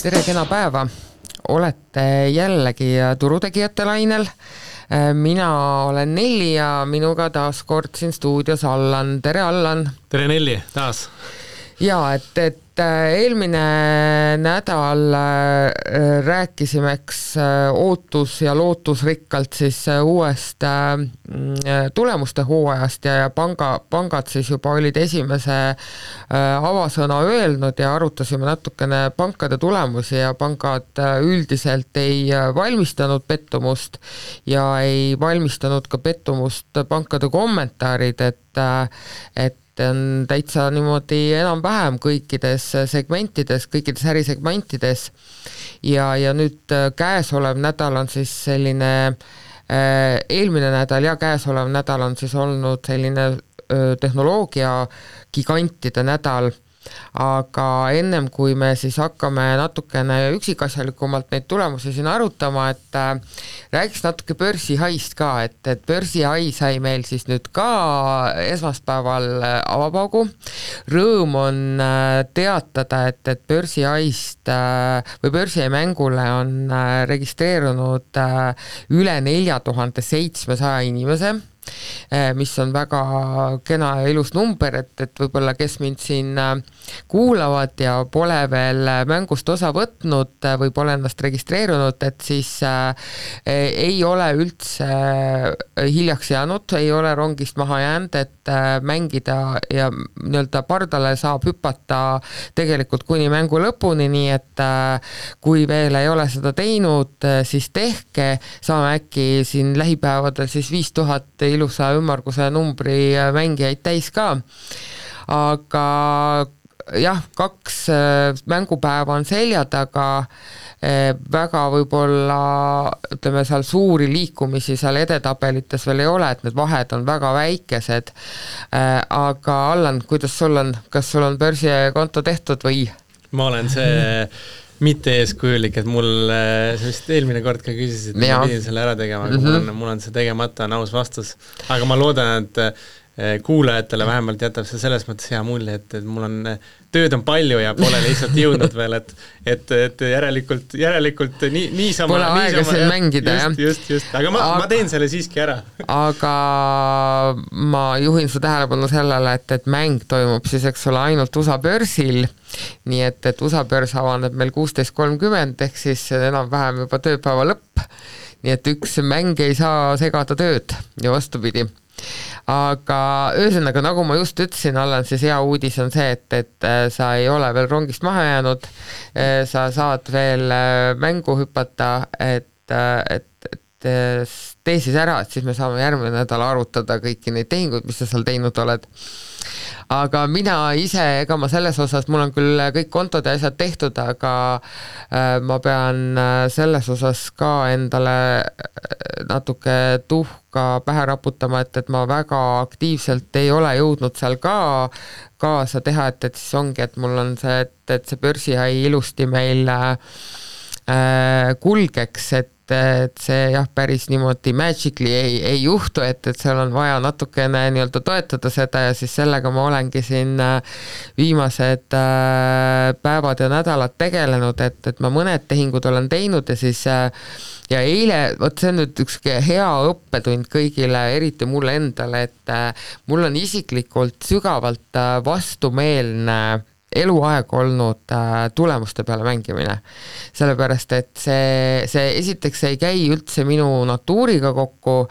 Tere, kena päeva! Olete jällegi turutegijate lainel. Mina olen Nelli ja minuga taas kord siin stuudios Allan. Tere, Allan! Tere, Nelli, taas! Ja, et eelmine nädal rääkisimeks ootus ja lootusrikkalt siis uuest tulemuste hooajast ja pangad siis juba olid esimese avasõna öelnud ja arutasime natukene pankade tulemusi ja pangad üldiselt ei valmistanud pettumust ja ei valmistanud ka pettumust pankade kommentaarid, et on täitsa niimoodi enam-vähem kõikides segmentides, kõikides ärisegmentides ja nüüd käesolev nädal on siis selline, eelmine nädal ja käesolev nädal on siis olnud selline tehnoloogia gigantide nädal, aga ennem kui me siis hakkame natukene üksikasjalikumalt neid tulemusi siin arutama, et räägiks natuke börsihaist ka, et börsihai sai meil siis nüüd ka esmaspäeval avapaugu. Rõõm on teatada, et börsihaist või börsihai mängule on registreerunud üle 4700 inimese, mis on väga kena ja ilus number, et võib-olla kes mind siin kuulavad ja pole veel mängust osa võtnud või pole ennast registreerunud, et siis ei ole üldse hiljaks jäänud, ei ole rongist maha jäänud, et mängida ja nii-öelda pardale saab hüpata tegelikult kuni mängu lõpuni, nii et kui veel ei ole seda teinud, siis tehke, saame äkki siin lähipäevadel siis 5000 ilusa ümmarguse numbri mängijaid täis ka. Aga jah, 2 mängupäeva on selja taga, väga võib-olla ütleme seal suuri liikumisi seal edetabelites veel ei ole, et need vahed on väga väikesed. Aga Allan, kuidas sul on? Kas sul on börsikonto tehtud või? Ma olen see mitte eeskujulik, et mul see vist eelmine kord ka küsisid, et ma pidin selle ära tegema, aga mul on see tegemata, on aus vastus. Aga ma loodan, et kuulajatele vähemalt jätab see selles mõttes hea mulje, et mul on tööd on palju ja pole lihtsalt jõudnud veel, et järelikult niisama pole aega siin mängida, just, aga ma teen selle siiski ära. Aga ma juhin su tähelepanu sellele, et mäng toimub siis, eks ole, ainult USA börsil, nii et USA börs avaneb meil 16.30 ehk siis enam-vähem juba tööpäeva lõpp, nii et üks mäng ei saa segada tööd ja vastupidi. Aga ühesõnaga, nagu ma just ütlesin, Allan, siis hea uudis on see, et sa ei ole veel rongist maha jäänud, sa saad veel mängu hüpata, et tee siis ära, et siis me saame järgmine nädal arutada kõiki neid tehinguid, mis sa seal teinud oled. Aga mina ise, ega ma selles osas, mul on küll kõik kontod ja asjad tehtud, aga ma pean selles osas ka endale natuke tuhka pähe raputama, et ma väga aktiivselt ei ole jõudnud seal ka kaasa teha, et siis ongi, et mul on see, et see börsihai ilusti meil kulgeks, et see jah, päris niimoodi magically ei juhtu, et seal on vaja natukene nii-öelda toetada seda ja siis sellega ma olengi siin viimased päevad ja nädalad tegelenud, et ma mõned tehingud olen teinud ja siis ja eile, vot see on nüüd üks hea õppetund kõigile, eriti mulle endale, et mul on isiklikult sügavalt vastumeelne eluaeg olnud tulemuste peale mängimine. Sellepärast, et see esiteks ei käi üldse minu natuuriga kokku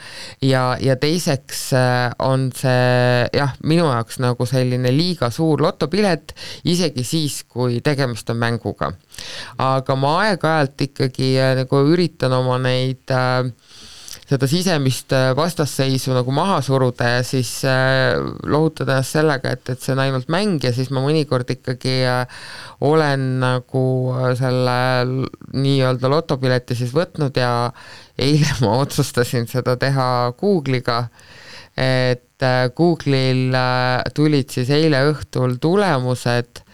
ja teiseks on see jah, minu jaoks nagu selline liiga suur lotopilet, isegi siis, kui tegemist on mänguga. Aga ma aeg-ajalt ikkagi nagu üritan oma neid seda sisemist vastasseisu nagu maha suruda ja siis lohutada ennast sellega, et see on ainult mäng ja siis ma mõnikord ikkagi olen nagu selle nii-öelda lotopileti siis võtnud ja eile ma otsustasin seda teha Google'iga, et Google'il tulid siis eile õhtul tulemused,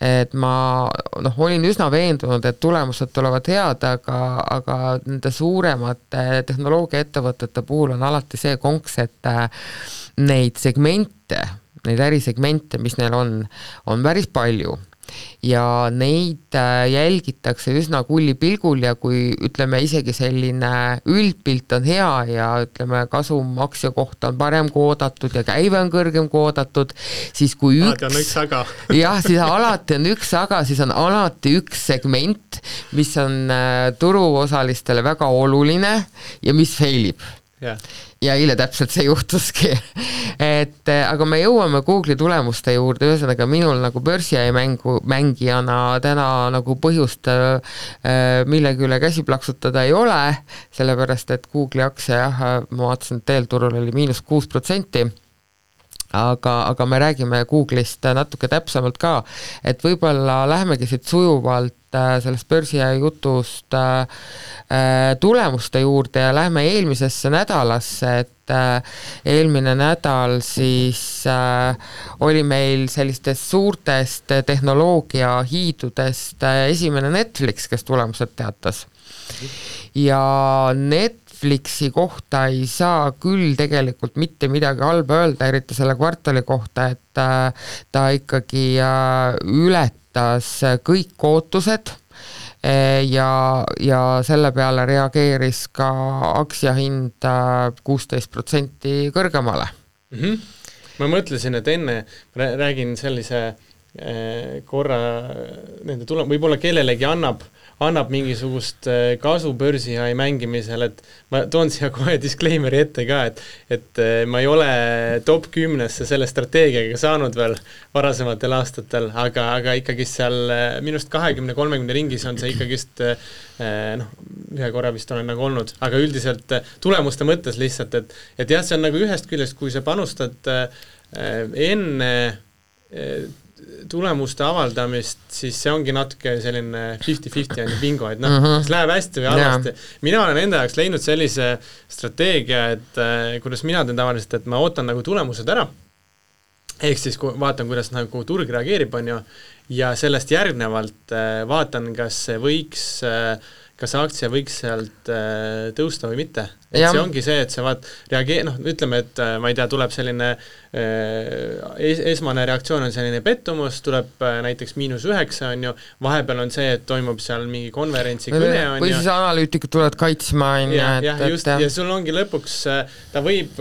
et ma olin üsna veendunud, et tulemused tulevad head, aga nende suuremate tehnoloogiaettevõtete puhul on alati see konks, et neid segmente, neid ärisegmente, mis neil on päris palju. ja neid jälgitakse üsna kullipilgul ja kui ütleme isegi selline üldpilt on hea ja ütleme kasum aktsia kohta on parem kui oodatud ja käive on kõrgem kui oodatud, siis kui üks aga. jah, siis alati on üks aga, siis on alati üks segment, mis on turuosalistele väga oluline ja mis failib. Ja eile täpselt see juhtuski, et aga me jõuame Google'i tulemuste juurde, ühesõnaga minul nagu börsiäi mängijana täna nagu põhjust millegi üle käsi plaksutada ei ole, sellepärast et Google'i aktsia jah, ma vaatasin, et eelturul oli -6%, aga me räägime Google'ist natuke täpsemalt ka, et võib-olla lähemegi siit sujuvalt sellest börsiäi jutust tulemuste juurde ja lähme eelmisesse nädalasse, et eelmine nädal siis oli meil sellistest suurtest tehnoloogia hiidudest esimene Netflix, kes tulemused teatas. Ja Netflixi kohta ei saa küll tegelikult mitte midagi halba öelda, eriti selle kvartali kohta, et ta ikkagi ületas kõik ootused ja selle peale reageeris ka aktsiahind 16% kõrgemale. Ma mõtlesin, et enne räägin sellise korra nende võib-olla kellelegi annab mingisugust kasu börsiäi mängimisel, et ma toon siia kohe disclaimeri ette ka, et ma ei ole top 10-sse selle strateegiaga saanud veel varasematel aastatel, aga ikkagi seal minust 20-30 ringis on see ikkagist ühe korra vist olen nagu olnud, aga üldiselt tulemuste mõttes lihtsalt, et jah, see on nagu ühest küljest, kui sa panustad enne tulemuste avaldamist, siis see ongi natuke selline 50-50 on bingo, et kas läheb hästi või halvasti. Mina olen enda jaoks leidnud sellise strateegia, et kuidas mina teen tavaliselt, et ma ootan nagu tulemused ära, ehk siis vaatan, kuidas nagu turg reageerib, on ju, ja sellest järgnevalt vaatan, kas aktsia võiks sealt tõusta või mitte. Et see ongi see, et sa ütleme, et ma ei tea, tuleb selline esmane reaktsioon on selline pettumus, tuleb näiteks -9, on ju, vahepeal on see, et toimub seal mingi konverentsi kõne, on ju. Või siis analüütikud tulevad kaitsma, on ju. Ja sul ongi lõpuks, ta võib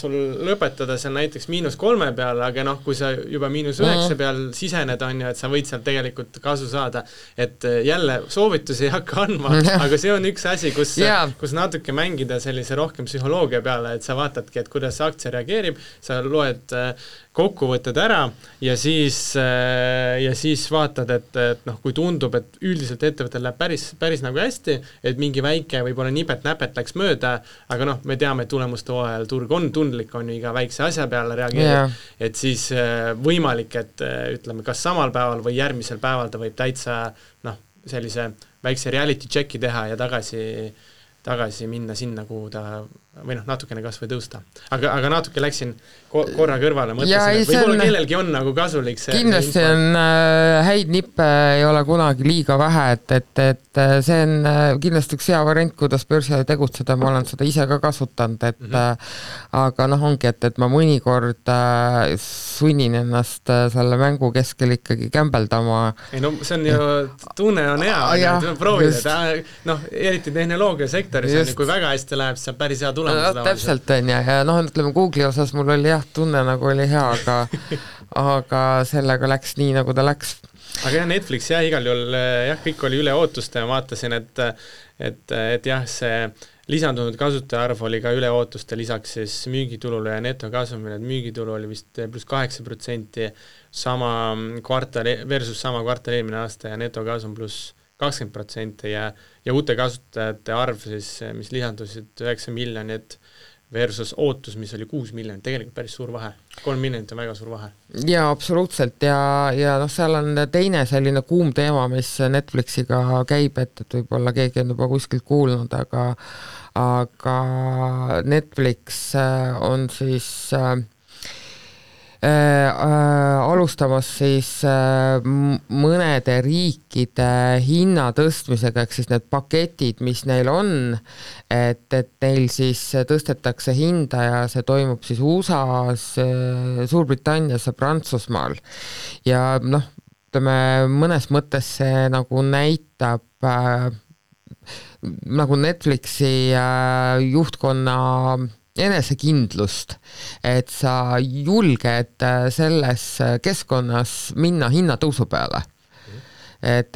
sul lõpetada seal näiteks -3 peal, aga kui sa juba -9 peal sisened, on ju, et sa võid sealt tegelikult kasu saada. Et jälle soovitusi ei hakka andma, aga see on üks asi, kus natuke mängida sellise rohkem psühholoogia peale, et sa vaatadki, et kuidas see aktsia reageerib, sa loed kokkuvõtted ära ja siis vaatad, et kui tundub, et üldiselt ettevõttel läheb päris nagu hästi, et mingi väike võib-olla nipet-näpet läks mööda, aga me teame, et tulemuste hooajal turg on tundlik, on ju iga väikse asja peale reageerib, et siis võimalik, et ütleme, kas samal päeval või järgmisel päeval ta võib täitsa sellise väikse reality checki teha ja tagasi minna sinna, kuhu ta või natukene kas või tõusta. Aga natuke läksin korra kõrvale, mõtlesin, et võib-olla kellelgi on nagu kasulik see. Kindlasti on häid nippe ei ole kunagi liiga vähe, et see on kindlasti üks hea variant, kuidas börsiäi tegutseda, ma olen seda ise ka kasutanud, aga ongi, et ma mõnikord sunnin ennast selle mängu keskel ikkagi kämbeldama. Ei see on ju, tunne on hea, proovida, eriti tehnoloogiasektoris, kui väga hästi läheb, siis on päris hea täpselt on ja ütleme Google'i osas mul oli tunne nagu oli hea, aga sellega läks nii, nagu ta läks. Aga Netflix igal juhul kõik oli üle ootuste ja vaatasin, et see lisandunud kasutajaarv oli ka üle ootuste lisaks siis müügitulule ja netokasumile, et müügitulu oli vist +8% sama kvartal eelmine aasta ja netokasum +20% ja uute kasutajate arv siis, mis lisandusid 9 miljonit versus ootus, mis oli 6 miljonit, tegelikult päris suur vahe. 3 miljonit on väga suur vahe. Jaa, absoluutselt ja seal on teine selline kuum teema, mis Netflixiga käib, et võib-olla keegi on juba kuskilt kuulnud, aga Netflix on siis alustamas siis mõnede riikide hinna tõstmisega, ehk siis need paketid, mis neil on, et neil siis tõstetakse hinda ja see toimub siis USA-s, Suurbritannias ja Prantsusmaal ja ütleme, mõnes mõttes see nagu näitab nagu Netflixi juhtkonna enesekindlust, et sa julged selles keskkonnas minna hinnatõusu peale. Et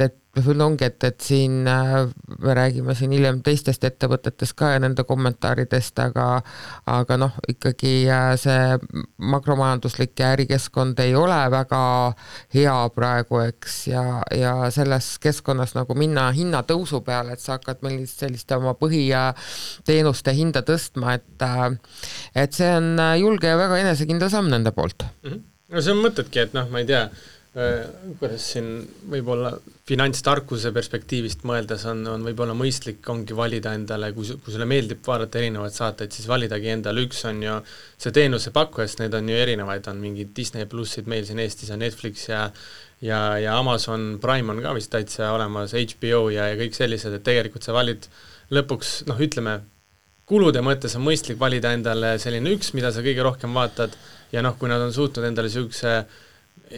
ongi, et siin me räägime siin hiljem teistest ettevõtetest ka ja nende kommentaaridest, aga noh, ikkagi see makromajanduslik ja ärikeskkond ei ole väga hea praegu, eks, ja selles keskkonnas nagu minna hinnatõusu peale, et sa hakkad meil sellist oma põhiteenuste hinda tõstma, et see on julge ja väga enesekindel samm nende poolt. No see on mõtedki, et noh, ma ei tea, kuidas siin võib-olla finantstarkuse perspektiivist mõeldes on võib-olla mõistlik ongi valida endale, kui sulle meeldib vaadata erinevaid saateid, siis validagi endale, üks on ju see teenuse pakkujast, need on ju erinevaid, on mingid Disney plussid, meil siin Eestis on Netflix ja Amazon Prime on ka vist täitsa olemas, HBO ja kõik sellised, et tegelikult sa valid lõpuks, noh ütleme, kulude mõttes on mõistlik valida endale selline üks, mida sa kõige rohkem vaatad ja noh, kui nad on suutnud endale niisuguse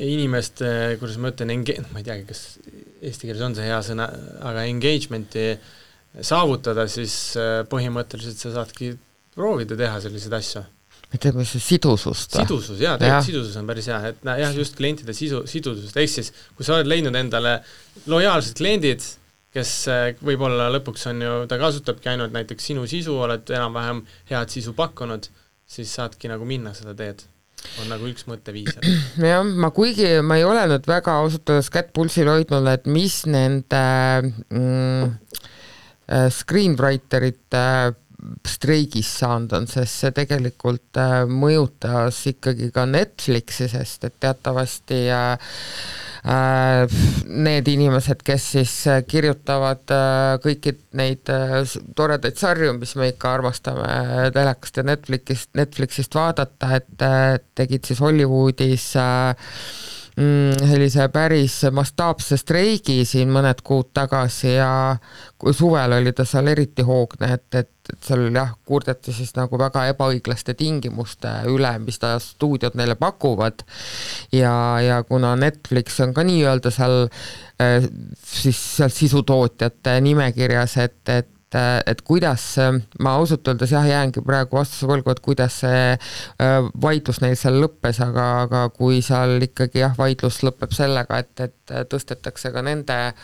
inimeste, kuidas ma ütlen, ma ei teagi, kas eesti keeles on see hea sõna, aga engagementi saavutada, siis põhimõtteliselt sa saadki proovida teha selliseid asju. Ütleme see sidusust. Sidusus, jah, tegelikult sidusus on päris hea, et jah, just klientide sidusust, ehk siis, kui sa oled leidnud endale lojaalsed kliendid, kes võib-olla lõpuks on ju, ta kasutabki ainult näiteks sinu sisu, oled enam-vähem head sisu pakkunud, siis saadki nagu minna seda teed. On nagu üks mõtteviis. Jah, kuigi ma ei ole nüüd väga ausutades kätt pulsil hoidnud, et mis nende screenwriterite streigis saanud on, sest see tegelikult mõjutas ikkagi ka Netflixi, sest et teatavasti need inimesed, kes siis kirjutavad kõiki neid toredaid sarju, mis me ikka armastame telekast ja Netflixist vaadata, et tegid siis Hollywoodis sellise päris mastaapse streigi siin mõned kuud tagasi ja suvel oli ta seal eriti hoogne, et seal jah, kurdeti siis nagu väga ebaõiglaste tingimuste üle, mis ta stuudiod neile pakuvad ja kuna Netflix on ka nii-öelda seal siis seal sisutootjate nimekirjas, et kuidas, ma ausalt öeldes jah, jäängi praegu vastuse võlgu, et kuidas see vaidlus neil seal lõppes, aga kui seal ikkagi jah, vaidlus lõpeb sellega, et tõstetakse ka nende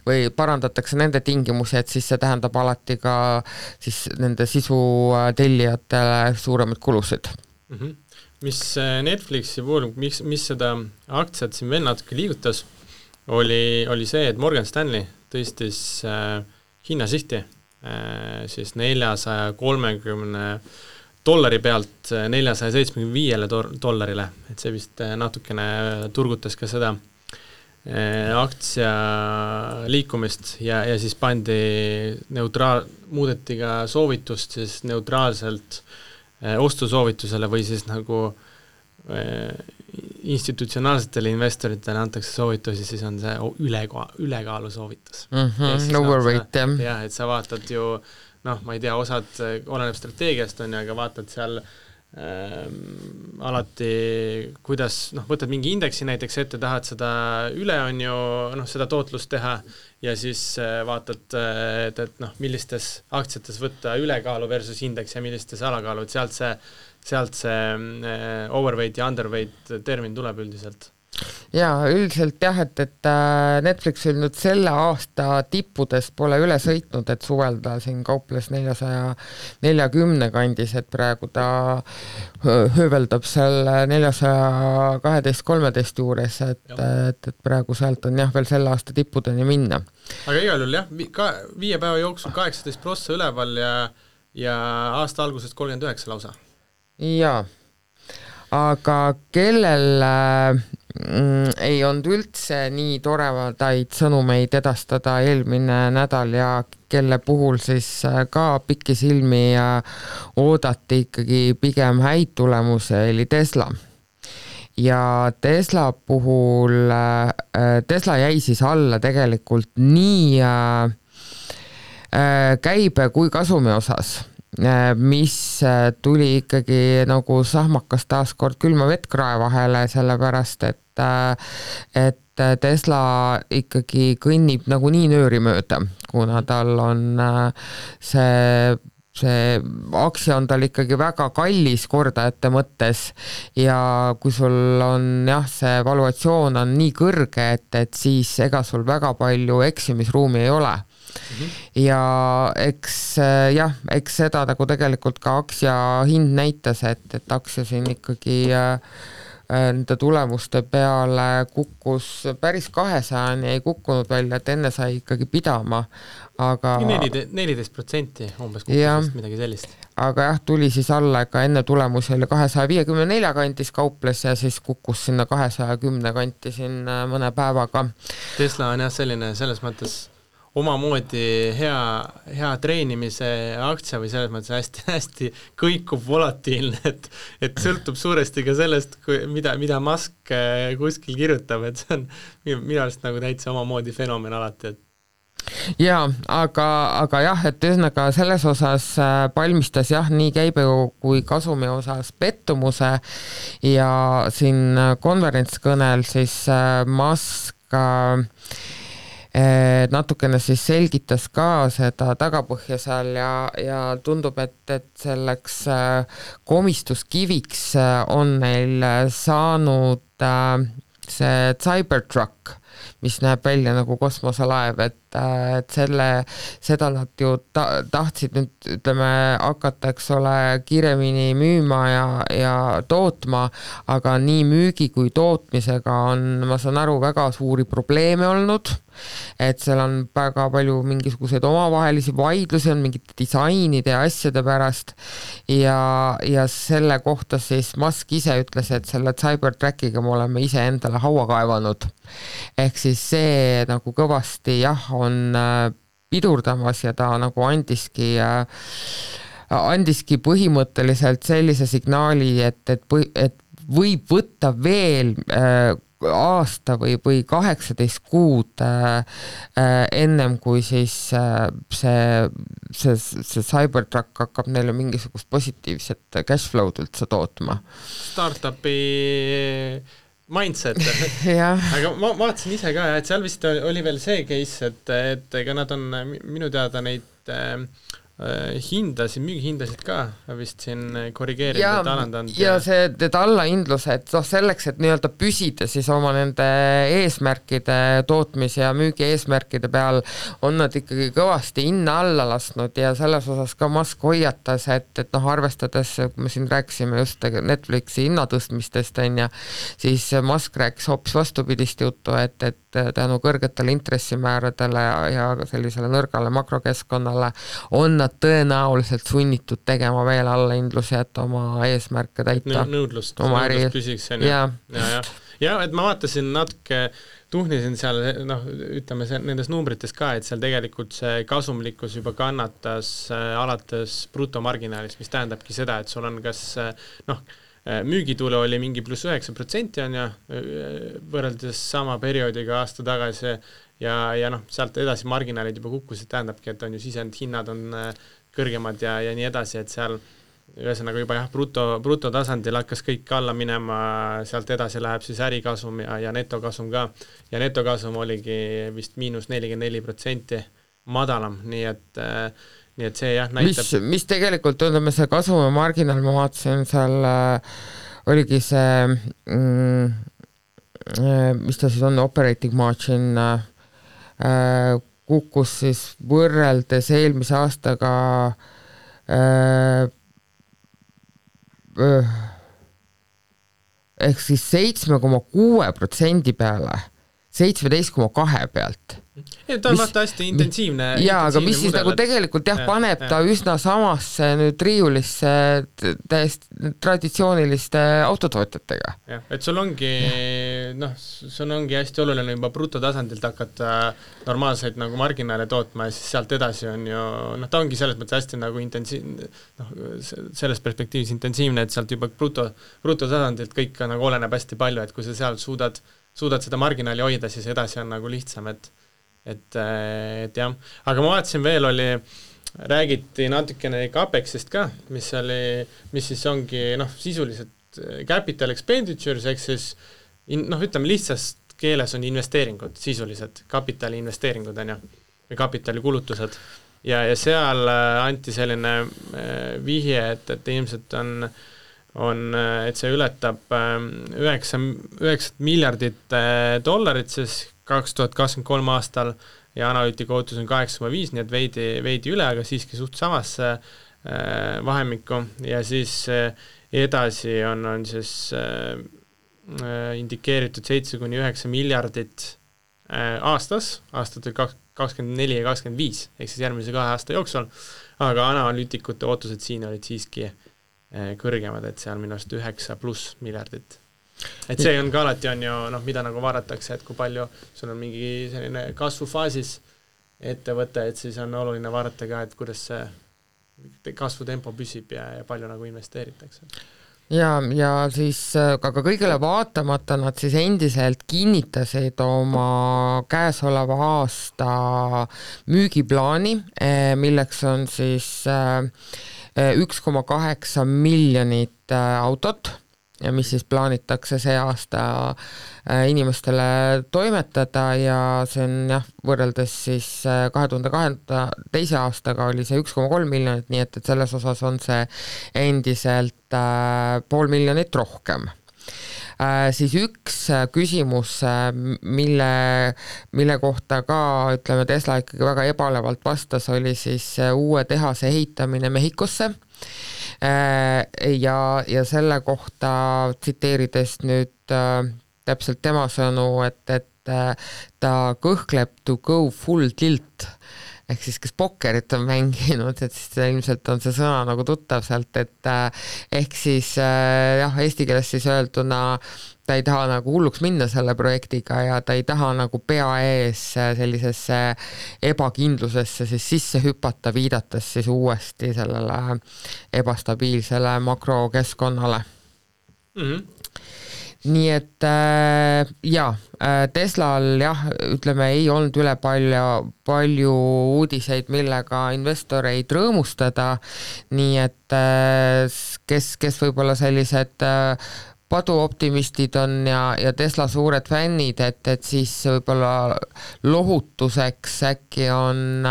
või parandatakse nende tingimusi, et siis see tähendab alati ka siis nende sisu tellijatele suuremaid kulusid. Mis Netflixi puhul, mis seda aktsiat siin veel natuke liigutas, oli see, et Morgan Stanley tõstis hinnasihti siis $430 pealt $475, et see vist natukene turgutas ka seda aktsia liikumist ja siis muudeti ka soovitust siis neutraalselt ostusoovitusele või siis nagu institutsionaalsetele investoritele antakse soovitusi, siis on see ülekaalu soovitus. Overweight, jah. Et sa vaatad ju, noh, ma ei tea, osad oleneb strateegiast on, aga vaatad seal alati, kuidas, noh, võtad mingi indeksi näiteks ette, tahad seda üle on ju, noh, seda tootlust teha ja siis vaatad, et noh, millistes aktsiates võtta ülekaalu versus indeks ja millistes alakaalu, et sealt see overweight ja underweight termin tuleb üldiselt. Jaa, üldiselt jah, et Netflixil nüüd selle aasta tippudes pole üle sõitnud, et suvelda siin kauples 440 kandis, et praegu ta hööveldab seal 412-13 juures, et praegu sealt on jah veel selle aasta tippudeni minna. Aga igal juhul jah, 5 päeva jooksul 18% üleval ja aasta algusest 39 lausa. Jaa, aga kellel ei olnud üldse nii toredaid sõnumeid edastada eelmine nädal ja kelle puhul siis ka pikisilmi oodati ikkagi pigem häid tulemusi, oli Tesla. Ja Tesla puhul, Tesla jäi siis alla tegelikult nii käibe kui kasumi osas. mis tuli ikkagi nagu sahmakas taaskord külma vettkrae vahele, sellepärast et Tesla ikkagi kõnnib nagunii nööri mööda, kuna tal on see aktsia on tal ikkagi väga kallis kordajate mõttes ja kui sul on see valuatsioon on nii kõrge, et siis ega sul väga palju eksimisruumi ei ole. Ja eks seda nagu tegelikult ka aktsia hind näitas, et aktsia siin ikkagi nende tulemuste peale kukkus päris 200-ni, ei kukkunud välja, et enne sai ikkagi pidama, aga 14% umbes kukkusest, midagi sellist. Aga tuli siis alla, ega enne tulemusi oli 254 kantis kauples ja siis kukkus sinna 210 kanti siin mõne päevaga. Tesla on selline selles mõttes omamoodi hea treenimise aktsia või selles mõttes hästi kõikub volatiilne, et sõltub suuresti ka sellest, mida Musk kuskil kirjutab, et see on minu arust nagu täitsa omamoodi fenomen alati, Jaa, aga et ühesõnaga selles osas palmistas nii käibe kui kasumi osas pettumuse ja siin konverentskõnel siis Musk natukene siis selgitas ka seda tagapõhja seal ja tundub, et selleks komistuskiviks on neil saanud see Cybertruck, mis näeb välja nagu kosmoselaev, et seda nad ju tahtsid nüüd, ütleme, hakata, eks ole, kiiremini müüma ja tootma, aga nii müügi kui tootmisega on, ma saan aru, väga suuri probleeme olnud, et seal on väga palju mingisuguseid omavahelisi vaidlusi, on mingite disainide ja asjade pärast ja selle kohta siis Musk ise ütles, et selle Cybertruckiga me oleme ise endale haua kaevanud. Ehk siis see nagu kõvasti on pidurdamas ja ta nagu andiski põhimõtteliselt sellise signaali, et võib võtta veel aasta või 18 kuud ennem, kui siis see Cybertruck hakkab neile mingisugust positiivset cashflow'd üldse tootma. Startupi mindset. Aga ma vaatasin ise ka, et seal vist oli veel see case, et ega nad on minu teada neid müügihindasid ka vist siin korrigeerinud, alandanud. Ja see allahindlus, et selleks, et nii-öelda püsida siis oma nende eesmärkide tootmis- ja müügi eesmärkide peal on nad ikkagi kõvasti hinna alla lasknud ja selles osas ka Musk hoiatas, et arvestades, kui me siin rääkisime just Netflixi hinnatõstmistest, siis Musk rääkis hoopis vastupidist juttu, et tänu kõrgetele intressimääradele ja sellisele nõrgale makrokeskkonnale on nad tõenäoliselt sunnitud tegema veel allahindlusi, et oma eesmärke täita. Nõudlust püsiks. Ja, et ma vaatasin natuke, tuhnisin seal, ütleme nendes numbrites ka, et seal tegelikult see kasumlikkus juba kannatas alates brutomarginaalist, mis tähendabki seda, et sul on kas müügitulu oli mingi pluss 9% võrreldes sama perioodiga aasta tagasi ja sealt edasi marginaalid juba kukkusid, tähendabki, et on ju sisend hinnad on kõrgemad ja nii edasi, et seal ühesõnaga juba bruto tasandil hakkas kõik alla minema, sealt edasi läheb siis ärikasum ja netokasum ka ja netokasum oligi vist -44% madalam, nii et see näitab... Mis tegelikult, ütleme, see kasumi marginaal, ma vaatasin seal, oligi see, mis ta siis on, operating margin, kukkus siis võrreldes eelmise aastaga ehk siis 7,6% peale, 17,2 pealt. Ta on vaata hästi intensiivne. Jaa, aga mis siis nagu tegelikult paneb ta üsna samasse nüüd riiulisse täiesti traditsiooniliste autotootjatega. Et sul ongi hästi oluline juba brutotasandilt hakata normaalseid nagu marginaale tootma ja siis sealt edasi on ju, ta ongi selles mõttes hästi nagu intensiivne, selles perspektiivis intensiivne, et sealt juba brutotasandilt kõik nagu oleneb hästi palju, et kui sa seal suudad seda marginaali hoida, siis edasi on nagu lihtsam, et jah, aga ma vaatasin veel oli räägiti natukene Capexist ka, mis siis ongi sisuliselt capital expenditures, ehk siis ütleme lihtsast keeles on investeeringud, sisuliselt kapitali investeeringud on ju, või kapitali kulutused ja seal anti selline vihje, et ilmselt et see ületab 9 miljardit dollarit siis 2023 aastal ja analüütika ootus on 8,5, nii et veidi üle, aga siiski suht samasse vahemikku ja siis edasi on siis indikeeritud 7-9 miljardit aastatel 24 ja 25, ehk siis järgmise 2 aasta jooksul, aga analüütikute ootused siin olid siiski kõrgemad, et seal minu arust 9+ miljardit. Et see on ka alati on ju, mida nagu vaadatakse, et kui palju sul on mingi selline kasvufaasis ettevõte, et siis on oluline vaadata ka, et kuidas see kasvutempo püsib ja palju nagu investeeritakse. Ja siis aga kõigele vaatamata nad siis endiselt kinnitasid oma käesoleva aasta müügiplaani, milleks on siis 1,8 miljonit autot, mis siis plaanitakse see aasta inimestele toimetada ja see on võrreldes siis 2022. aastaga oli see 1,3 miljonit, nii et selles osas on see endiselt 500 000 rohkem. Siis üks küsimus, mille kohta ka ütleme Tesla ikkagi väga ebalevalt vastas, oli siis uue tehase ehitamine Mehhikosse ja selle kohta tsiteerides nüüd täpselt tema sõnu, et ta kõhkleb to go full tilt, ehk siis kes pokkerit on mänginud, et siis ilmselt on see sõna nagu tuttav sealt, et ehk siis eesti keeles siis öelduna ta ei taha nagu hulluks minna selle projektiga ja ta ei taha nagu pea ees sellisesse ebakindlusesse siis sisse hüpata, viidates siis uuesti sellele ebastabiilsele makrokeskkonnale. Nii et Teslal ütleme ei olnud üle palju uudiseid, millega investoreid rõõmustada, nii et kes võib-olla sellised paduoptimistid on ja Tesla suured fännid, et siis võib-olla lohutuseks äkki on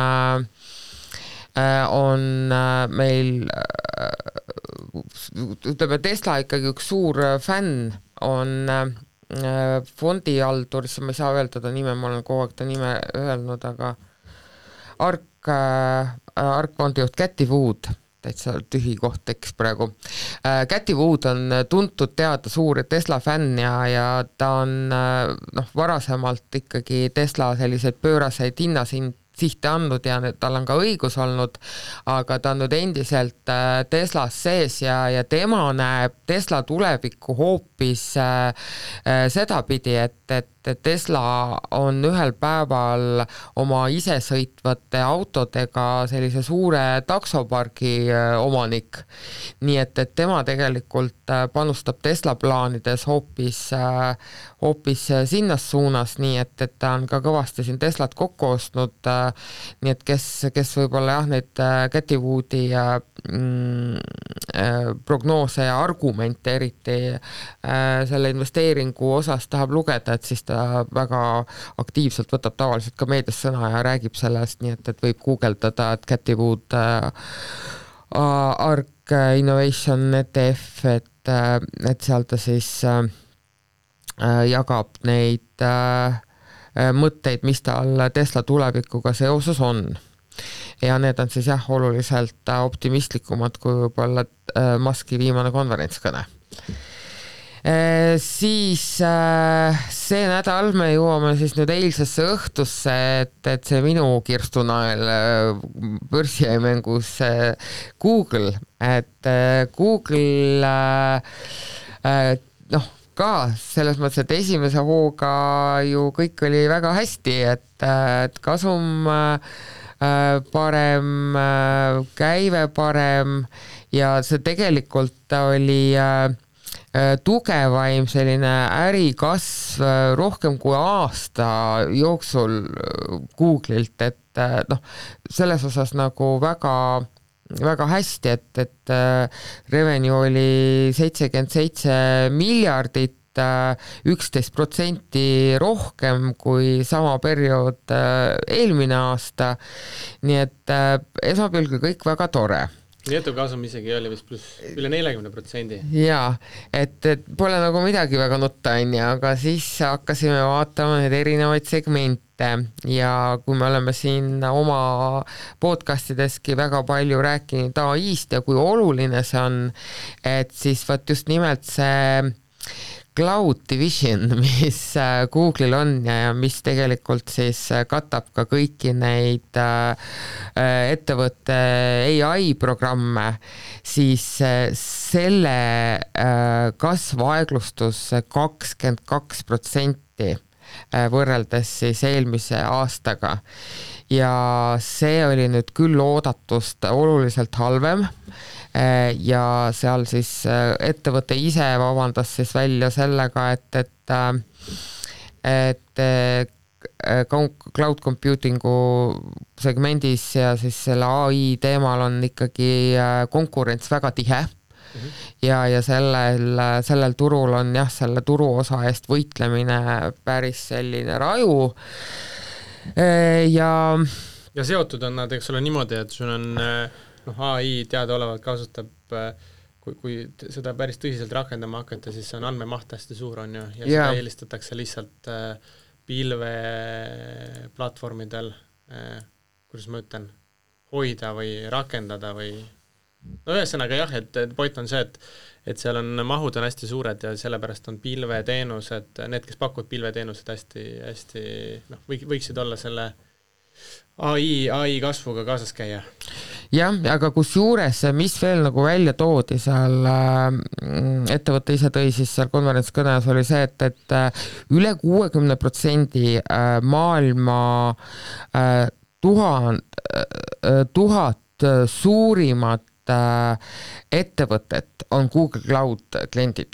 meil ütleme Tesla ikkagi üks suur fänn on fondihaldur, ma ei saa öelda ta nime, ma olen kogu aeg ta nime öelnud, aga Ark fondijuht Cathy Wood, täitsa tühi koht tekkis praegu. Cathy Wood on tuntud teada suur Tesla fänn ja ta on varasemalt ikkagi Tesla selliseid pööraseid hinnasihte andnud ja tal on ka õigus olnud, aga ta on nüüd endiselt Teslas sees ja tema näeb Tesla tulevikku hoopis sedapidi, et Tesla on ühel päeval oma isesõitvate autodega sellise suure taksopargi omanik. Nii et tema tegelikult panustab Tesla plaanides hoopis sinnas suunas, nii et ta on ka kõvasti siin Teslat kokku ostnud, nii et kes võib-olla neid Cathy Woodi prognoose ja argumente eriti selle investeeringu osas tahab lugeda, et siis ta väga aktiivselt võtab tavaliselt ka meedias sõna ja räägib sellest, nii et võib guugeldada, et Cathy Wood Ark Innovation ETF, et seal ta siis jagab neid mõtteid, mis tal Tesla tulevikuga seoses on. Ja need on siis oluliselt optimistlikumad kui võib-olla Muski viimane konverentskõne. Siis see nädal me jõuame siis nüüd eilsesse õhtusse, et see minu kirstunael börsi jäi mängus Google, et Google ka selles mõttes, et esimese hooga ju kõik oli väga hästi, et kasum parem, käive parem ja see tegelikult oli tugevaim selline ärikasv rohkem kui aasta jooksul Google'ilt, et noh, selles osas nagu väga hästi, et revenue oli 77 miljardit, 11% rohkem kui sama periood eelmine aasta, nii et esmapilgul kõik väga tore. Netokasum isegi oli vist pluss üle 40%. Jaa, et pole nagu midagi väga nutta, aga siis hakkasime vaatama need erinevaid segmente ja kui me oleme siin oma podcastideski väga palju rääkinud AI-st ja kui oluline see on, et siis võt just nimelt see Cloud Division, mis Google'il on ja mis tegelikult siis katab ka kõiki neid ettevõtte AI-programme, siis selle kasv aeglustus 22% võrreldes siis eelmise aastaga. Ja see oli nüüd küll oodatust oluliselt halvem, ja seal siis ettevõte ise vabandas siis välja sellega, et cloud computingu segmendis ja siis selle AI teemal on ikkagi konkurents väga tihe ja sellel turul on jah, selle turuosa eest võitlemine päris selline raju ja seotud on nad, eks ole niimoodi, et sul on AI teadaolevalt kasutab, kui seda päris tõsiselt rakendama hakata, siis see on andmemaht hästi suur on ju, ja seda eelistatakse lihtsalt pilveplatvormidel, kuidas ma ütlen, hoida või rakendada või no ühesõnaga jah, et point on see, et seal on mahud on hästi suured ja sellepärast on pilveteenused, need, kes pakuvad pilveteenused hästi võiksid olla selle AI kasvuga kaasas käia. Jah, aga kus juures, mis veel nagu välja toodi seal ettevõtte ise tõi siis seal konverentskõnes oli see, et üle 60% maailma 1000 suurimat ettevõtet on Google Cloud kliendid.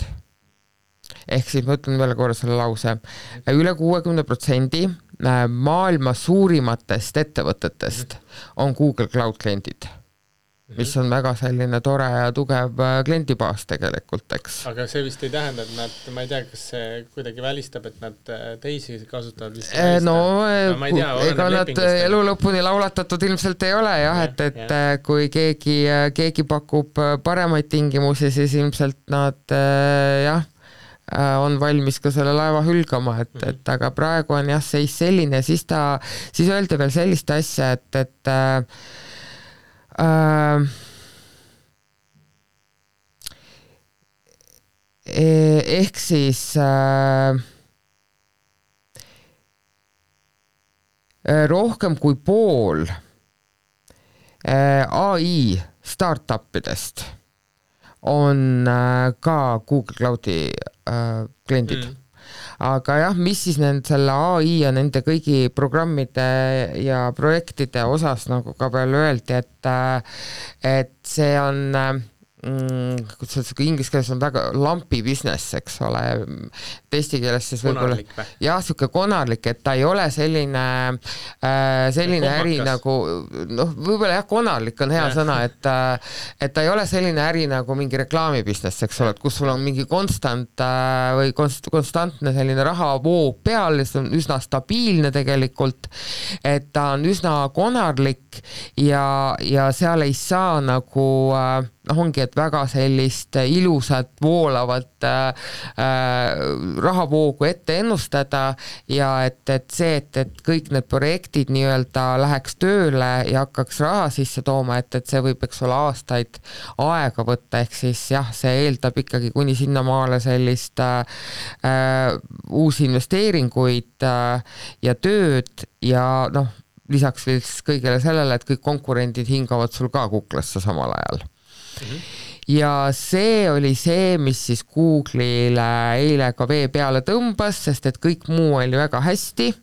Ehk siis ma ütlen veel korra selle lause. Üle 60% maailma suurimatest ettevõtetest on Google Cloud kliendid, mis on väga selline tore ja tugev kliendibaas tegelikult, eks. Aga see vist ei tähenda, et nad, ma ei tea, kas see kuidagi välistab, et nad teisi kasutavad vist ega nad elu lõpuni laulatatud ilmselt ei ole jah, et kui keegi pakub paremaid tingimusi, siis ilmselt nad on valmis ka selle laeva hülgama, et aga praegu on jah seis selline, siis öeldi veel sellist asja, et ehk siis rohkem kui pool AI startupidest on ka Google Cloudi kliendid. Aga jah, mis siis selle AI ja nende kõigi programmide ja projektide osas nagu ka veel öeldi, et see on inglise keeles on väga lumpy business, eks ole, eesti keeles siis võib-olla jah, siuke konarlik, et ta ei ole selline äri nagu võib-olla jah, konarlik on hea sõna, et ta ei ole selline äri nagu mingi reklaami business, eks ole, et kus sul on mingi konstantne selline rahavoog peal, see on üsna stabiilne tegelikult, et ta on üsna konarlik ja seal ei saa nagu ongi, et väga sellist ilusat, voolavat rahavoogu ette ennustada ja et see, et kõik need projektid nii-öelda läheks tööle ja hakkaks raha sisse tooma, et see võib, eks ole, aastaid aega võtta, ehk siis jah, see eeldab ikkagi kuni sinnamaale sellist uusi investeeringuid ja tööd ja lisaks kõigele sellele, et kõik konkurendid hingavad sul ka kuklasse samal ajal. Ja see oli see, mis siis Google'ile eile ka vee peale tõmbas, sest et kõik muu oli väga hästi.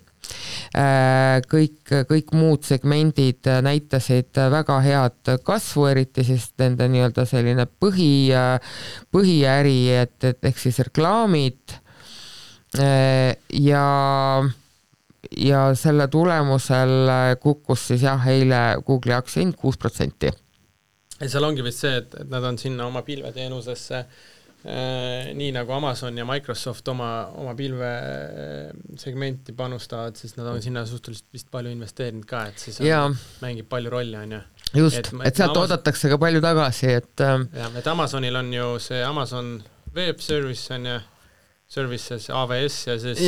Kõik muud segmendid näitasid väga head kasvu, eriti siis nende nii-öelda selline põhiäri, et ehk siis reklaamid ja ja selle tulemusel kukkus siis jah, eile Google'i aktsia hind 6%. Ja seal ongi vist see, et nad on sinna oma pilveteenusesse nii nagu Amazon ja Microsoft oma pilvesegmenti panustavad, siis nad on sinna suhteliselt vist palju investeerinud ka, et siis mängib palju rolli, on ju. Just, et sealt oodatakse ka palju tagasi, et et Amazonil on ju see Amazon Web Service on ju, Services AWS ja siis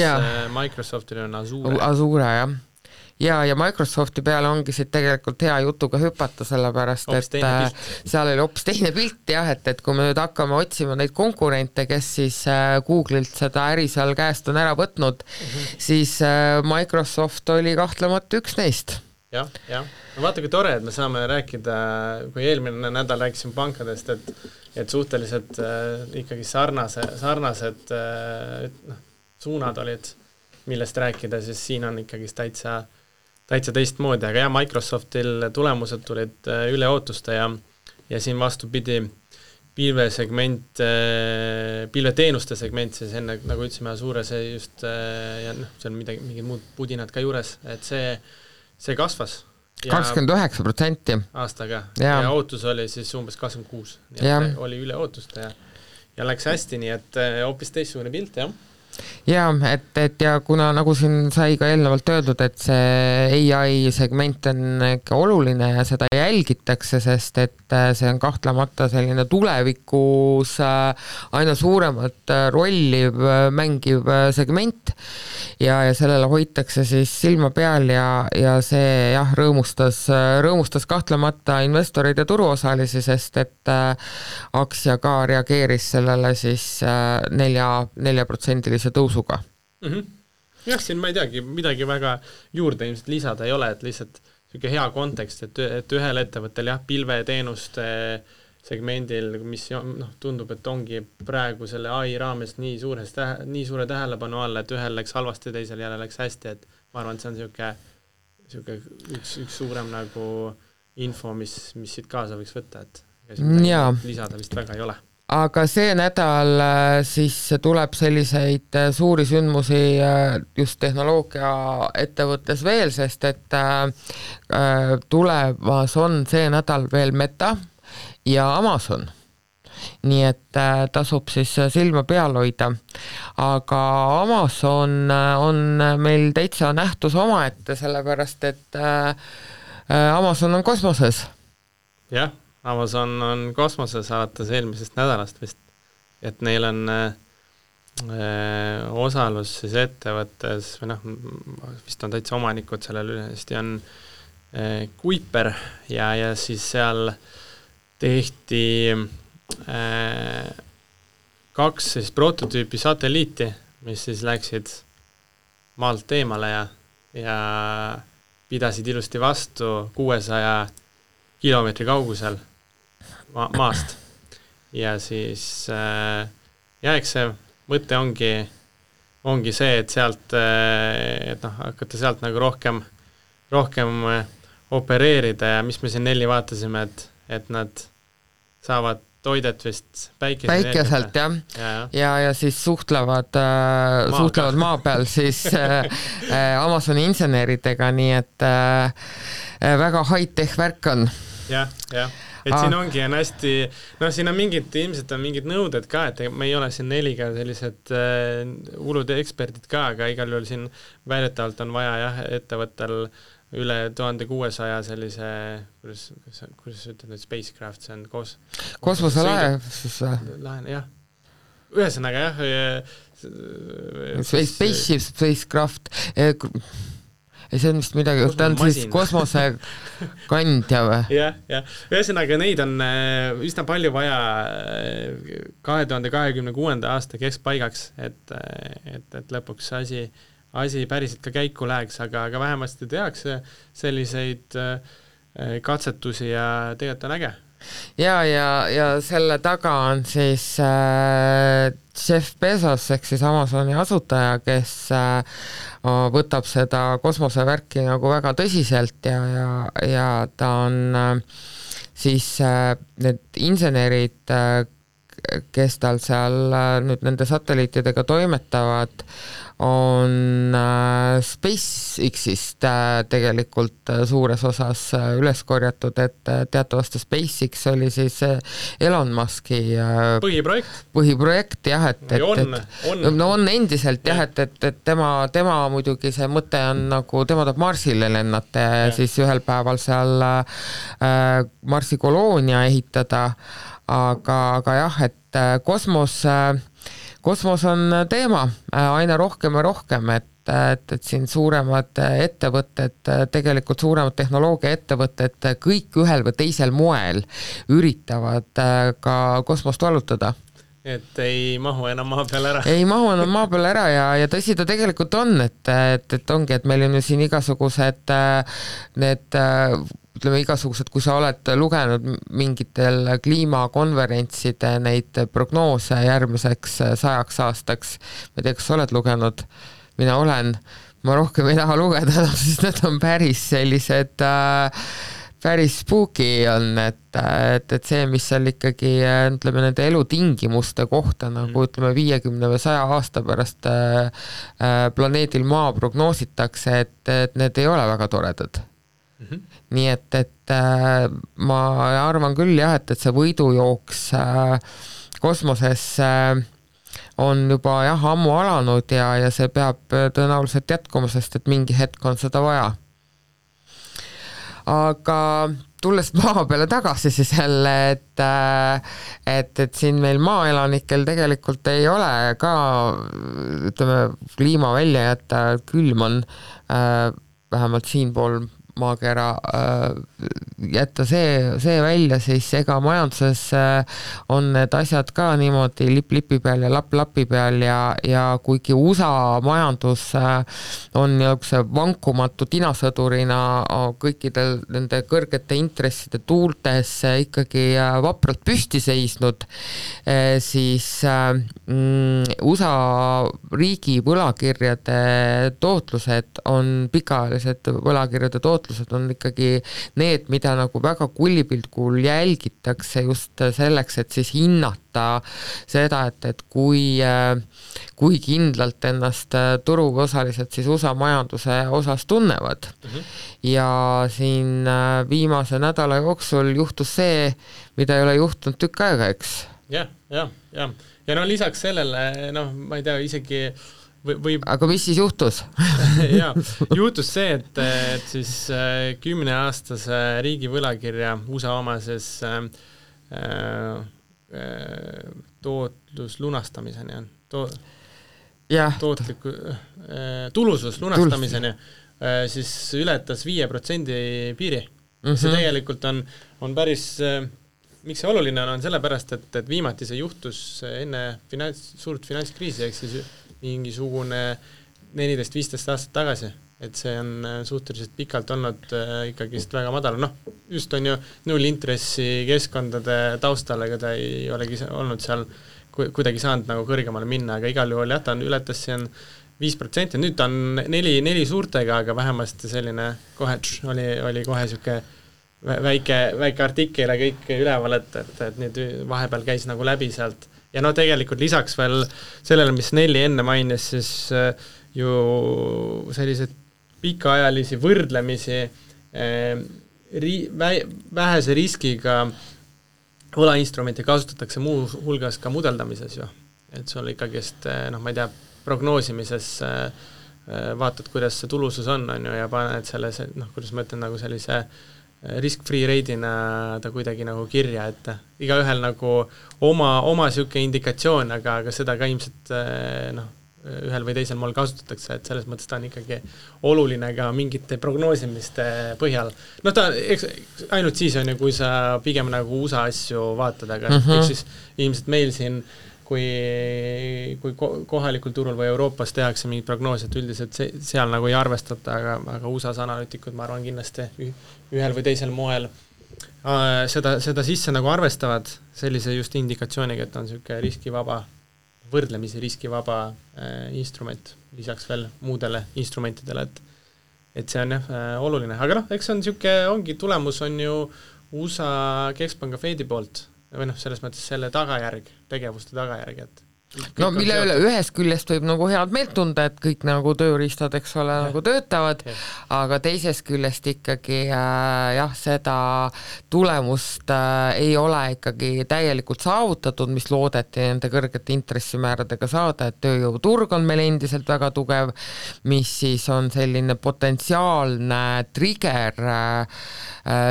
Microsoftil on Azure. Azure, jah. Ja Microsofti peale ongi siit tegelikult hea jutuga hüpata, sellepärast, et seal oli hoopis teine pilt jah, et kui me nüüd hakkame otsima neid konkurente, kes siis Google'ilt seda äri seal käest on ära võtnud, siis Microsoft oli kahtlemata üks neist. Jah. No vaata, kui tore, et me saame rääkida, kui eelmine nädal rääkisime pankadest, et suhteliselt ikkagi sarnased suunad olid, millest rääkida, siis siin on ikkagi täitsa teistmoodi, aga Microsoftil tulemused tulid üle ootuste ja siin vastupidi pilveteenuste segment, siis enne, nagu ütlesime, Azure see just, ja see on mingid muud pudinad ka juures, et see kasvas. 29% aastaga ja ootus oli siis umbes 26%, nii et oli üle ootuste ja läks hästi, nii et hoopis teistsugune pilt, jah. Ja, et ja kuna nagu siin sai ka eelnevalt öeldud, et see AI segment on ikka oluline ja seda jälgitakse, sest et see on kahtlemata selline tulevikus aina suuremat rolli mängiv segment ja sellele hoitakse siis silma peal ja see jah, rõõmustas kahtlemata investoreid ja turuosalisi, sest et aktsia ka reageeris sellele siis 4% tõusuga. Jah, siin ma ei teagi, midagi väga juurde ilmselt lisada ei ole, et lihtsalt selline hea kontekst, et ühel ettevõttel jah, pilveteenuste segmendil, mis tundub, et ongi praegu selle AI raames nii suure tähelepanu all, et ühel läks halvasti, teisel jälle läks hästi, et ma arvan, et see on selline üks suurem nagu info, mis siit kaasa võiks võtta, et lisada vist väga ei ole. Aga see nädal siis tuleb selliseid suuri sündmusi just tehnoloogia ettevõttes veel, sest et tulemas on see nädal veel Meta ja Amazon. Nii et tasub siis silma peal hoida. Aga Amazon on meil täitsa nähtus omaette, sellepärast et Amazon on kosmoses. Jah. Amazon on kosmoses alates eelmisest nädalast vist, et neil on osalus siis ettevõttes, või vist on täitsa omanikud sellel ülesti, on Kuiper ja siis seal tehti 2 siis prototüüpi satelliiti, mis siis läksid maalt eemale ja pidasid ilusti vastu 600 kilomeetri kaugusel maast ja siis eks see mõte ongi see, et sealt hakata sealt nagu rohkem opereerida ja mis me siin 4 vaatasime, et nad saavad toidet vist päikeselt ja siis suhtlevad maa peal siis Amazoni inseneridega, nii et väga high-tech värk on. Jah. Et siin ongi hästi, siin on ilmselt on mingid nõuded ka, et me ei ole siin 4 sellised hullud eksperdid ka, aga igal juhul siin väidetavalt on vaja ettevõttel üle 1600 sellise, kuidas ütled, spacecraft, see on kosmoselaev. Jah. Ühesõnaga spacecraft see on vist midagi, ta on siis kosmosekandja või? Jah. Ühesõnaga neid on üsna palju vaja 2026. aasta keskpaigaks, et lõpuks asi päriselt ka käiku läheks, aga vähemasti tehakse selliseid katsetusi ja tegelikult on äge. Ja selle taga on siis Jeff Bezos ehk siis Amazoni asutaja, kes võtab seda kosmosevärki nagu väga tõsiselt ja ta on siis need insenerid, kes tal seal nüüd nende satelliitidega toimetavad, on SpaceX-ist tegelikult suures osas üles korjatud, et teatavasti SpaceX oli siis Elon Muski põhiprojekt jah, on endiselt jah, et tema muidugi see mõte on nagu, tema tahab Marsile lennata ja siis ühel päeval seal Marsi koloonia ehitada, aga jah, et kosmos on teema aina rohkem ja rohkem, et siin suuremad ettevõtted, tegelikult suuremad tehnoloogiaettevõtted kõik ühel või teisel moel üritavad ka kosmost vallutada. Et ei mahu enam maa peal ära. Ei mahu enam maa peal ära ja tõsi ta tegelikult on, et ongi, et meil on ju siin igasugused need ütleme igasugused, kui sa oled lugenud mingitel kliimakonverentside neid prognoose järgmiseks 100 aastaks, ma ei tea, kas sa oled lugenud, mina olen, ma rohkem ei taha lugeda, siis need on päris sellised päris spooky on, et see, mis seal ikkagi ütleme nende elutingimuste kohta nagu ütleme 50 või 100 aasta pärast planeedil Maa prognoositakse, et need ei ole väga toredad. Nii et ma arvan küll jah, et see võidujooks kosmoses on juba jah ammu alanud ja see peab tõenäoliselt jätkuma, sest et mingi hetk on seda vaja. Aga tulles maa peale tagasi siis jälle, et siin meil maaelanikel tegelikult ei ole ka ütleme kliima välja jätta, külm on vähemalt siinpool maakera jätta see välja, siis ega majanduses on need asjad ka niimoodi lipi peal ja lapi peal ja kuigi USA majandus on niisuguse vankumatu tinasõdurina kõikidel nende kõrgete intresside tuultes ikkagi vapralt püsti seisnud, siis USA riigi võlakirjade tootlused on pikaajalised võlakirjade tootlused on ikkagi need, mida nagu väga kullipilgul jälgitakse just selleks, et siis hinnata seda, et kui kindlalt ennast turuosalised siis USA majanduse osas tunnevad. Ja siin viimase nädala jooksul juhtus see, mida ei ole juhtunud tükk aega, eks? Ja no lisaks sellele, ma ei tea, isegi Aga mis siis juhtus? Jaa, juhtus see, et siis 10-aastase riigi võlakirja USA omases tootlus lunastamiseni on. Tulusus lunastamiseni siis ületas 5% piiri. See tegelikult on päris, miks see oluline on sellepärast, et viimati see juhtus enne suurt finantskriisi, ehk siis mingisugune 14-15 aastat tagasi, et see on suhteliselt pikalt olnud ikkagi väga madal. Just on ju nullintressi keskkondade taustal, ega ta ei olegi olnud seal kuidagi saanud nagu kõrgemale minna, aga igal juhul ta ületas siin 5%, nüüd ta on 4 suurtega, aga vähemasti selline kohe oli kohe siuke väike artikkel ja kõik üleval, et nüüd vahepeal käis nagu läbi sealt. Ja tegelikult lisaks veel sellele, mis Nelli enne mainis, siis ju sellised pikaajalisi võrdlemisi vähese riskiga võlainstrumenti kasutatakse muu hulgas ka mudeldamises ju. Et sul ikkagist, ma ei tea, prognoosimises vaatad, kuidas see tulusus on ju, ja paned selle, kuidas ma ütlen, nagu sellise risk-free rate'ina ta kuidagi nagu kirja, et igaühel nagu oma siuke indikatsioon, aga seda ka ilmselt ühel või teisel moel kasutatakse, et selles mõttes ta on ikkagi oluline ka mingite prognoosimiste põhjal. Ta ainult siis on ju, kui sa pigem nagu USA asju vaatad, aga siis ilmselt meil siin kui kohalikul turul või Euroopas tehakse mingid prognoosed, üldiselt seal nagu ei arvestata, aga USA-s analüütikud, ma arvan, kindlasti ühel või teisel moel seda sisse nagu arvestavad sellise just indikatsiooniga, et on selline riskivaba, võrdlemisi riskivaba instrument, lisaks veel muudele instrumentidele, et see on oluline. Aga eks on selline, ongi tulemus on ju USA Keskpanga Fedi poolt, või noh, selles mõttes selle tagajärg, tegevuste tagajärg, et no mille üle ühest küljest võib nagu head meelt tunda, et kõik nagu tööriistad, eks ole, nagu töötavad, aga teisest küljest ikkagi jah, seda tulemust ei ole ikkagi täielikult saavutatud, mis loodeti nende kõrgete intressimääradega saada, et tööjõuturg on meil endiselt väga tugev, mis siis on selline potentsiaalne trigger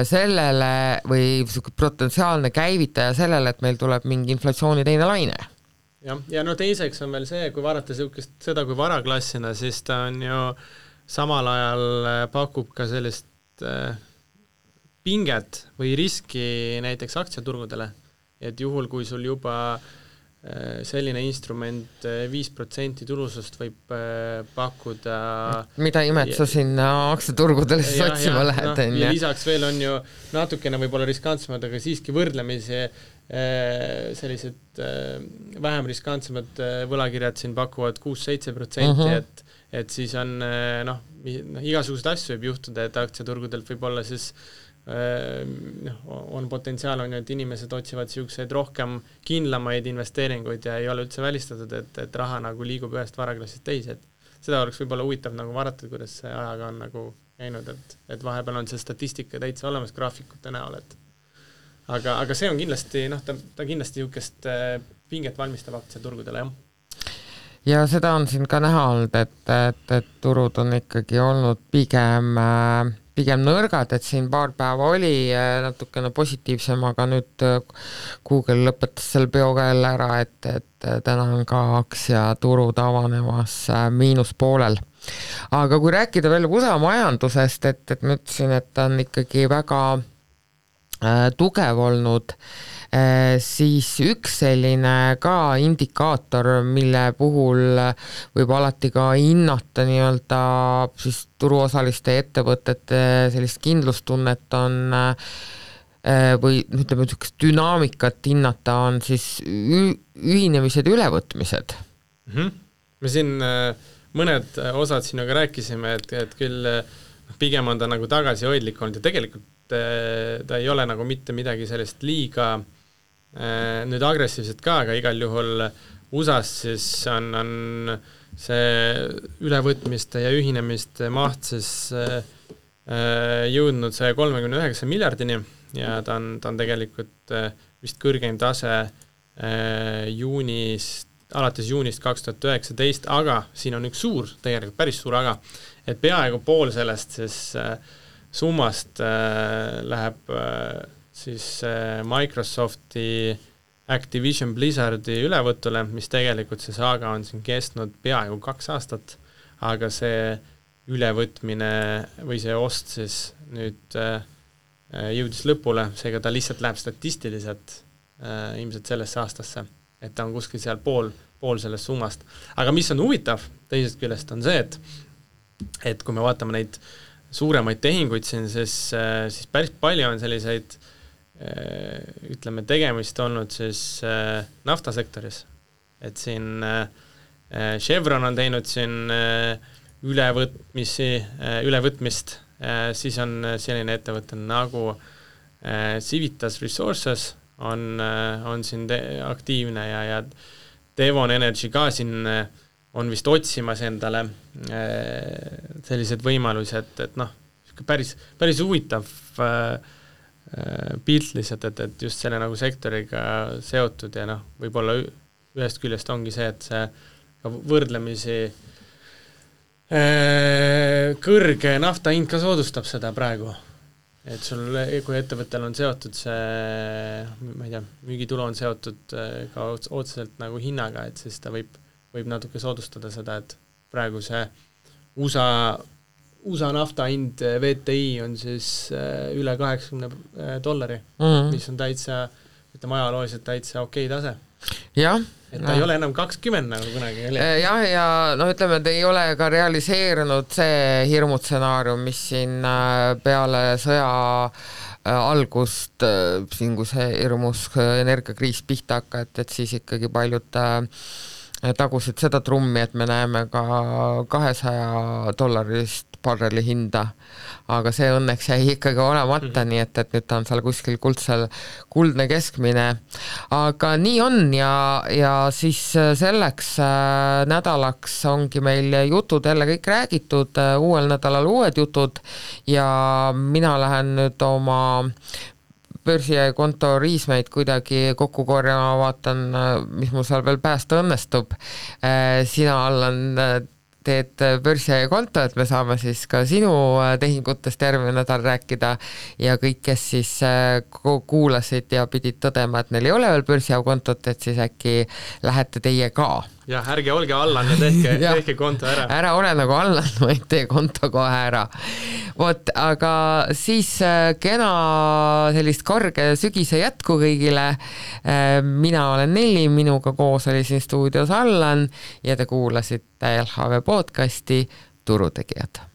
sellele või potentsiaalne käivitaja sellele, et meil tuleb mingi inflatsiooni teine laine. Ja no teiseks on veel see, kui vaadata seda kui varaklassina, siis ta on ju samal ajal pakub ka sellist pinget või riski näiteks aktsiaturgudele, et juhul, kui sul juba selline instrument 5% tulusust võib pakkuda. Mida imet sa sinna aktsiaturgudele siis otsima lähed? Ja lisaks veel on ju natukene võib-olla riskantsemad, aga siiski võrdlemisi sellised vähem riskantsemad võlakirjad siin pakuvad 6-7%, et siis on igasugused asju võib juhtuda, et aktsiaturgudelt võib olla siis on potentsiaal on ju, et inimesed otsivad siukseid rohkem kindlamaid investeeringuid ja ei ole üldse välistatud, et raha nagu liigub ühest varaklassist teise, et seda oleks võib-olla huvitav nagu vaadata, kuidas see ajaga on nagu käinud, et vahepeal on see statistika täitsa olemas graafikute näol, et aga see on kindlasti, ta kindlasti niisugust pinget valmistab aktsiaturgudele, jah. Ja seda on siin ka näha olnud, et turud on ikkagi olnud pigem nõrgad, et siin paar päeva oli natukene positiivsem, aga nüüd Google lõpetas selle peoga jälle ära, et täna on ka aktsiaturud avanemas miinuspoolel. Aga kui rääkida veel USA majandusest, et ma ütlesin, et ta on ikkagi väga tugev olnud, siis üks selline ka indikaator, mille puhul võib alati ka hinnata nii-öelda siis turuosaliste ettevõtete sellist kindlustunnet on või ütleme, dünaamikat hinnata on siis ühinemised ja ülevõtmised. Me siin mõned osad sinuga rääkisime, et küll pigem on ta nagu tagasihoidlik olnud ja tegelikult ta ei ole nagu mitte midagi sellist liiga nüüd agressiivset ka, aga igal juhul USA-s siis on see ülevõtmiste ja ühinemiste maht siis jõudnud 139 miljardini ja ta on tegelikult vist kõrgeim tase alates juunist 2019, aga siin on üks tegelikult päris suur aga, et peaaegu pool sellest siis summast läheb siis Microsofti Activision Blizzardi ülevõtule, mis tegelikult see saaga on siin kestnud peaaegu 2 aastat, aga see ülevõtmine või see ost siis nüüd jõudis lõpule, seega ta lihtsalt läheb statistiliselt ilmselt sellesse aastasse, et ta on kuskil seal pool sellest summast. Aga mis on huvitav teisest küljest on see, et kui me vaatame neid suuremaid tehinguid siin, siis päris palju on selliseid ütleme tegemist olnud siis naftasektoris, et siin Chevron on teinud siin ülevõtmist, siis on selline ettevõte nagu Civitas Resources on siin aktiivne ja Devon Energy ka siin on vist otsimas endale sellised võimalused, et päris huvitav pilt lihtsalt, et just selle nagu sektoriga seotud ja võib-olla ühest küljest ongi see, et see võrdlemisi kõrge nafta hind ka soodustab seda praegu. Et sul, kui ettevõttel on seotud see, ma ei tea, müügitulu on seotud ka otseselt nagu hinnaga, et siis ta võib natuke soodustada seda, et praegu see USA nafta hind VTI on siis üle $80, mis on täitsa, ütleme ajalooliselt täitsa okei tase. Jah. Et ta ei ole enam 20 nagu kunagi oli. Jah, ja ütleme, et ei ole ka realiseerunud see hirmutsenaarium, mis siin peale sõja algust, siin kui see hirmus energiakriis pihta hakka, et siis ikkagi paljud tagusid seda trummi, et me näeme ka $200 barreli hinda, aga see õnneks jäi ikkagi olemata, nii et nüüd ta on seal kuskil kuldne keskmine. Aga nii on ja siis selleks nädalaks ongi meil jutud jälle kõik räägitud, uuel nädalal uued jutud ja mina lähen nüüd oma börsikonto riismeid kuidagi kokku korjama, vaatan, mis mul seal veel päästa õnnestub. Sina, Allan, teed börsikonto, et me saame siis ka sinu tehingutest järgmine nädal rääkida ja kõik, kes siis kuulasid ja pidid tõdema, et neil ei ole veel börsikontot, et siis äkki lähete teie ka. Ja ärge olge Allan ja tehke konto ära. Ära ole nagu Allan, vaid tee konto kohe ära. Vot, aga siis kena sellist karge sügise jätku kõigile. Mina olen Nelli, minuga koos oli siin stuudios Allan ja te kuulasite LHV podcasti Turutegijad.